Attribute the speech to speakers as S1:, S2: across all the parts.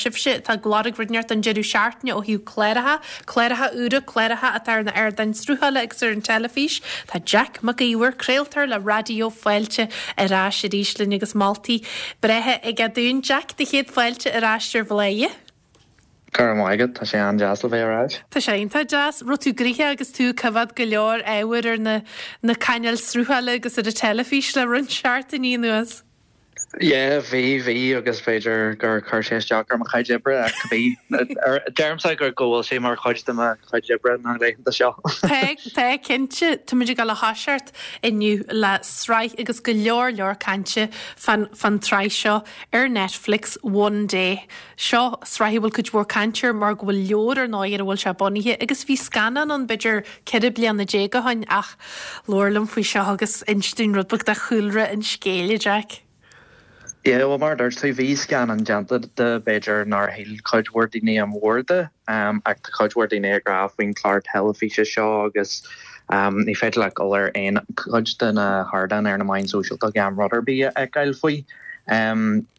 S1: sibhse atá ag lorg rud inteacht don deireadh seachtaine ó thaobh cláracha, cláracha úra, cláracha atá ar na ardáin sruthála agus ar an teilifís, tá Jack Mac Íomhair, craoltóir le Raidió Fáilte ar ais arís linn agus moltaí breátha aige dúinn. Jack, do chéad fáilte ar ais ar Bhladhaire.
S2: Go raibh maith agat, tá sé an-deas le bheith ar ais.
S1: Tá sé iontach deas. Raibh tú gnoitheach agus tú ag coimhéad go leor ábhair ar na na cainéil sruthála agus ar an teilifís le roinnt seachtainí anuas.
S2: Yeah, bhí, bhí agus b'fhéidir gur chuir sé isteach ar mo chuid oibre ach bhí, deirimse go go bhfuil sé mar chuid de mo chuid oibre na laethanta seo.
S1: Tá, tá, cinnte. Táimid ag dul a thoiseacht inniu le sraith agus go leor leor cainte fán fán tsraith seo ar Netflix, One Day. Seo sraith a bhfuil cuid mhór cainte air mar go bhfuil leabhar ar ndóigh ar a bhfuil sé bunaithe agus bhí scannán ann b'fhéidir 14 bliana ó shin ach labhair liom faoi seo agus inis dúinn rud beag de chúlra an scéil, a Jack.
S2: Yeah, bhuel mar a dúirt tú bhí scannán déanta de b'fhéidir nár shíl cuid mhór daoine an mhór de ach tá cuid mhór daoine ag rá faoin chlár teilifíse seo agus ní féidir leat dul ar aon chuid de na hardáin ar na meáin sóisialta gan rud ar bith a fheiceáil faoi.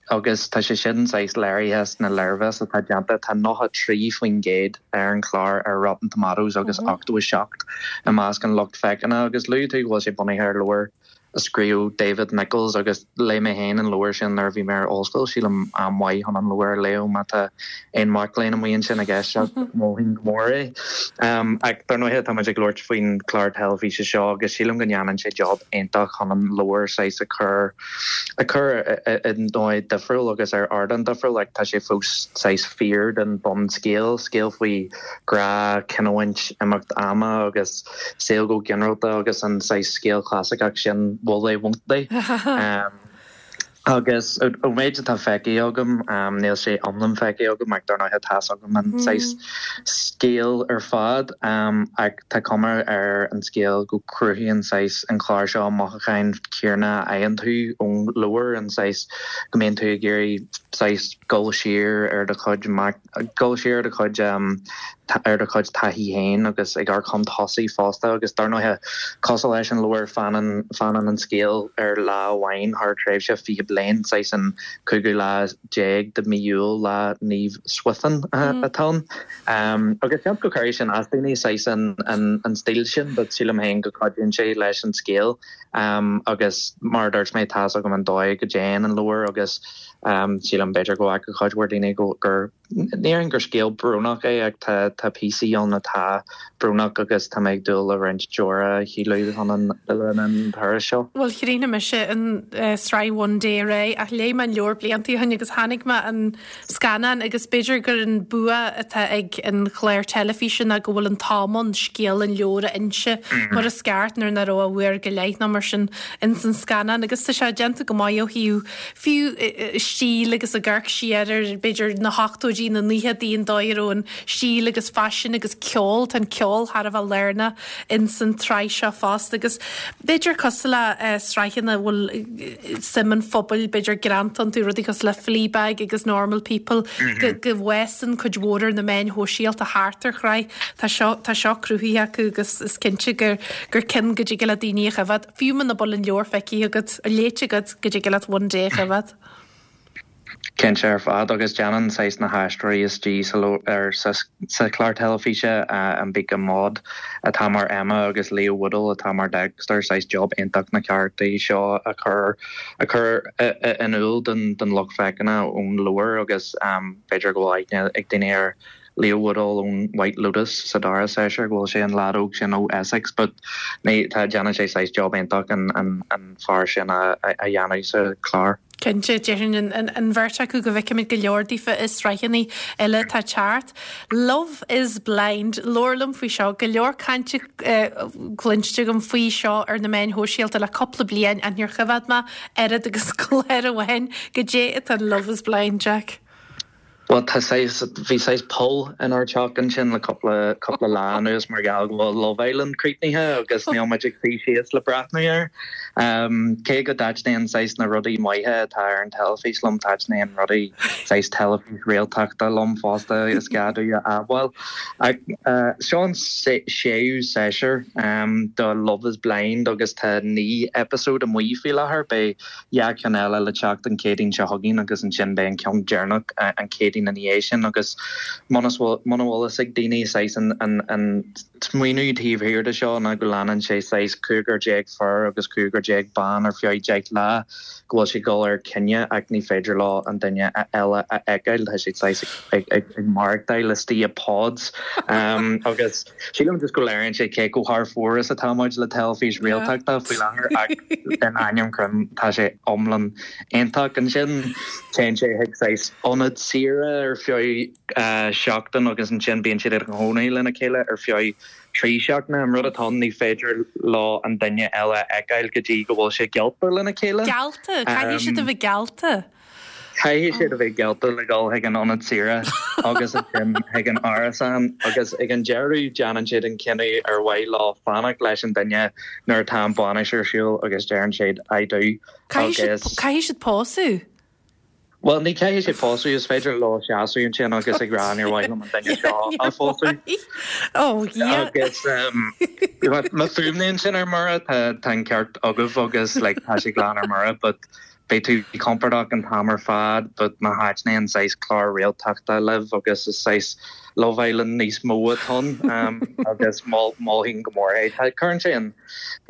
S2: Agus tá sé sin saghas léirithe sna léirmheas atá déanta, tá 93% ar an chlár ar Rotten Tomatoes agus 87 i measc an lucht féachana. Agus luaigh tú go bhfuil sé bunaithe ar leabhar a scríobh David Nicholls agus léigh mé féin an leabhar sin nuair a bhí mé ar ollscoil, sílim am maith chun an leabhar a léamh má tá aon mhac léinn amuigh ansin ag éisteacht, mholfainn go mór é. Ach dar ndóighe tá muid ag labhairt faoin chlár teilifíse seo agus sílim go ndéanann sé job iontach chun an leabhar saghas a chur a chur i ndóigh difriúil agus ar ardán difriúil ach tá sé fós saghas fíor don bunscéal, scéal faoi ghrá, cinniúint, imeacht ama agus saol go ginearálta agus an saghas scéal clasaiceach sin will they, won't they? Agus ón méid atá feicthe agam, níl sé iomlán feicthe agam ach dar ndóighe tá's agam an saghas scéal ar fad ach tá cuma ar an scéal go cruthaíonn saghas an clár seo an mothúcháin céanna a fhaigheann tú ón leabhar, an saghas go mbíonn tú ag iarraidh saghas dul siar ar do chuid dul siar ar do chuid ar do chuid taithí féin agus ag amharc chun tosaigh fosta agus dar ndóighe cosúil leis an leabhar fanann fanann an scéal ar lá amháin thar tréimhse 20 bliain, saghas an cúigiú lá déag de mí Iúil, lá Naomh Swithin atá ann. Agus seans go gcuirfidh sin as daoine, saghas an stíl sin, but sílim féin go gcuidíonn sé leis an scéal. Agus mar a dúirt mé, tá's agam an dóigh go dtéann an leabhar agus sílim b'fhéidir go bhfaca cuid mhór daoine gur, ní déarfainn gur scéal brónach é ach tá tá píosaí ann atá brónach agus tá mé ag dúil le roinnt deora a shileadh chun an le linn an turais seo.
S1: Bhuel chríochnaigh mise an sraith One Day aréir ach léigh mé an leabhar blianta ó shin agus chonaic mé an scannán agus b'fhéidir gur an bua atá ag an chlár teilifíse ná go bhfuil an t-am ann scéal an leabhair a inse mar is ceart nuair nach raibh ach uair go leith nó mar sin ins an scannán agus tá sé déanta go maith ó thaobh fiú stíl agus ag amharc siar ar b'fhéidir na hochtóidí, na naochadaí, an dóigh a raibh an stíl agus faisean agus ceol, tá an ceol thar a bheith lárnach ins an tsraith seo fosta agus b'fhéidir cosúil le sraitheanna a bhfuil suim an phobail b'fhéidir greanta iontu, rudaí cosúil le Fleabag agus Normal People, go go bhfásann cuid mhór ar na meáin shóisialta thart ar shraith. Tá seo tá seo cruthaithe acu agus is cinnte gur gur ceann go dtig le daoine a choimhéad. Fiú muna bhfuil an leabhar feicthe agat, léite agat, go dtig leat One Day a choimhéad.
S2: Cinnte ar fad, agus déanann saghas na haisteoirí istigh sa ar sa sa chlár teilifíse, Ambika Mod atá mar Emma agus Leo Woodall atá mar Dexter, saghas job iontach na carachtaí seo a chur a chur in iúl don don lucht féachana ón leabhar agus b'fhéidir go bhfuil aithne ag daoine ar Leo Woodall ón White Lotus sa dara séasúr, go bhfuil sé an leaid óg sin ó Essex but ní, tá, déanann sé saghas job iontach an, an, an fear sin a, a, a dhéanamh sa chlár.
S1: Cinnte, déarfainn an, an, an bheirt acu go bhfeicfimid go leor daofa i sraitheanna eile atá ag teacht. Love is Blind, labhair liom faoi seo, go leor cainte cluinste agam faoi seo ar na meáin shóisialta le cúpla bliain ach níor choimhéad mé oiread agus clár amháin. Goidé atá in Love is Blind, Jack?
S2: Bhuel, tá saghas, bhí saghas poll inár dteach ansin le cúpla, cúpla lá anuas mar gheall go bhfuil Love Island críochnaithe agus níl muid ag suí síos le breathnú air. Cé go dtaitníonn saghas na rudaí maithe atá ar an teilifís liom, taitníonn rudaí saghas teilifís réaltachta liom fosta, is gá domh a admháil. Ach seo an séú séasúr de Love is Blind agus tá 9 eipeasóid amuigh faoi láthair. Beidh 2 cheann eile le teacht an Chéadaoin seo chugainn agus ansin beidh an ceann deireanach an Chéadaoin. ansin ina dhiaidh sin agus muna bhfuil fhios ag daoine saghas an smaoineamh taobh thiar de seo ná go leanann sé saghas 15 fear agus 15 bean ar feadh 10 lá go bhfuil siad ag dul ar coinne ach ní féidir leo an duine eile a fheiceáil tá siad saghas ag maireachtáil istigh i pods agus sílim just go léiríonn sé cé chomh thar fóir is atá muid le teilifís réaltachta faoi láthair ach in ainm Chroim tá sé iomlán iontach. Ansin téann sé chuig saghas ionad saoire ar feadh seachtain agus ansin bíonn siad ina gcónaí lena chéile ar feadh 3 seachtaine. An rud atá ann ní féidir leo an duine eile a fheiceáil go dtí go bhfuil sé geallta lena chéile.
S1: Geallta? Caithfidh siad a bheith geallta?
S2: Caithfidh siad a bheith geallta le dhul chuig an ionad saoire agus ansin chuig an árasán agus ag an deireadh déanann siad an cinneadh ar mhaith leo fanacht leis an duine nuair atá an bhainis ar siúl agus deireann siad I do
S1: agus. Caithfidh siad pósadh?
S2: Bhuel, ní caithfidh siad pósadh, is féidir leo seasamh ansin agus ag rá níor mhaith liom an duine seo a phósadh.
S1: Oh, yeah.
S2: Agus má fuaimníonn sin ar mire, tá an ceart agaibh agus like, tá sé glan ar mire, but beidh tú compordach an t-am ar fad, but má thaitníonn saghas clár réaltachta libh agus is saghas Love Island níos mó atá ann agus mholfainn go mór é. Cuireann sé an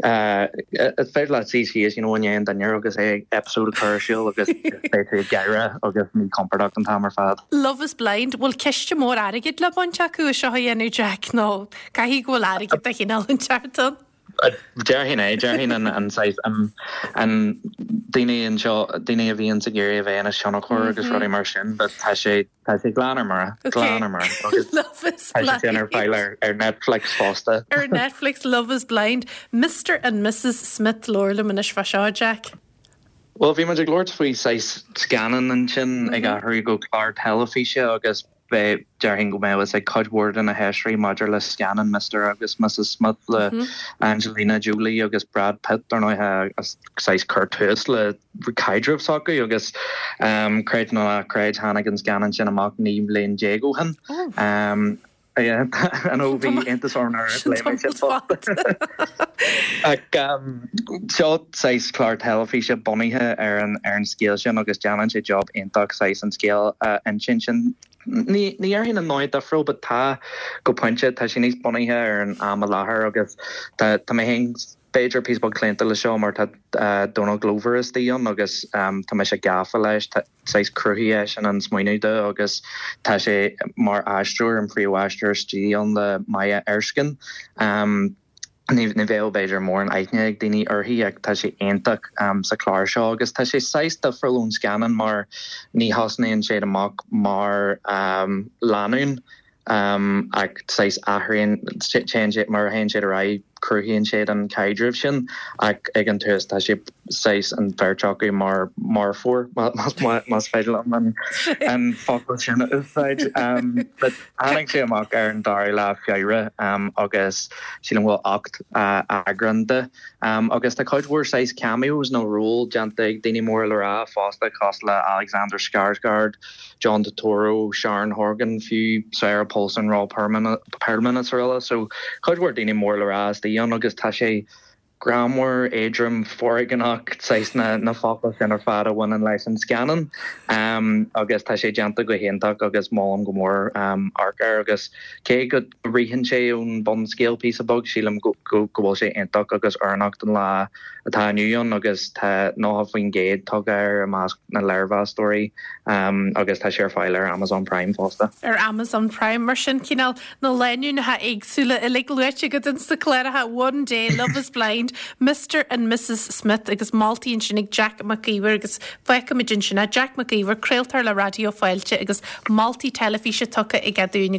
S2: Is féidir leat suí síos you know i ndiaidh an dinnéir agus é episode a chur ar siúl agus beidh tú ag gáire agus míchompordach an t-am ar fad.
S1: Love is Blind, bhfuil ciste mór airgid le baint acu as seo a dhéanamh Jack nó caithfidh go bhfuil airgead de chineál inteacht ann?
S2: Déarfainn é, déarfainn an saghas an daoine anseo, daoine a bhíonns ag iarraidh a bheith ina thionchar agus rudaí mar sin but tá sé Tá sé glan ar mire, glan ar mire.
S1: Agus Love is
S2: tá sé sin ar fáil ar, ar Netflix fosta.
S1: Ar Netflix, Love is Blind. Mr and Mrs Smith labhair liom anois fá seo, Jack.
S2: Bhuel, bhí muid ag labhairt faoi saghas scannán ansin ag athrú go clár teilifíse agus beidh, déarfainn go mbeadh fhios ag cuid mhór de na héisteoirí maidir le scannán Mr agus Mrs Smith le Angelina Jolie agus Brad Pitt, dar ndóigh, a saghas chuir tús le caidreamh s'acu agus creid nó ná creid tháinig an scannán sin amach 19 mbliain ó shin. I know bhí iontas orm nuair a léigh mé sin fosta. Ach seo saghas clár teilifíse bunaithe ar an ar an scéal sin agus déanann sé job iontach saghas an scéal a insint sin. Ní déarfainn i ndóigh difriúil but tá go pointe tá sé níos bunaithe ar an am i láthair agus tá tá mé féin b'fhéidir píosa beag claonta le seo mar tá Donald Glover istigh ann agus tá mise gafa leis, saghas chruthaigh eisean an smaoineamh do agus tá sé mar aisteoir, an príomhaisteoir istigh ann le Maya Erskine. Ní bheadh b'fhéidir mórán aithne ag daoine uirthi ach tá sí iontach sa chlár seo agus tá sé saghas difriúil ón scannán mar ní thosnaíonn siad amach mar lánúin ach saghas athraíonn, téann sé, mar a théann siad ar aghaidh, cruthaíonn siad an caidreamh sin ach ag an tús tá sé saghas an bheirt acu mar marfóir, más féidir liom an focal sin a úsáid. But tháinig sé amach ar an dara lá Feabhra agus sílim go bhfuil 8 eagrán de agus tá cuid mhór saghas cameos nó ról déanta ag daoine móra le rá fosta cosúil le Alexander Skarsgård, John Turturro, Sharon Horgan, fiú Sarah Paulson, Ron Perlman is araile. So cuid mhór daoine mór le rá istigh ann agus tá sé greannmhar, éadrom, foréigneach, saghas na na focail sin ar fad a bhaineann leis an scannán. Agus tá sé déanta go hiontach agus molaim go mór amharc air agus cé go ritheann sé ón bunscéal píosa beag, sílim go go bhfuil sé iontach agus oiriúnach don lá atá inniu ann agus tá 90% tugtha air i measc na léirmheastóirí agus tá sé ar fáil ar Amazon Prime fosta.
S1: Ar Amazon Prime, mar sin, cineál na lánúineacha éagsúla uilig luaite agat ins na cláracha One Day, Love is Blind, Mr and Mrs Smith agus moltaí ansin ag Jack Mac Íomhair agus fágfaimid ansin é. Jack Mac Íomhair, craoltóir le Raidió Fáilte agus moltaí teilifíse tugtha aige dúinn.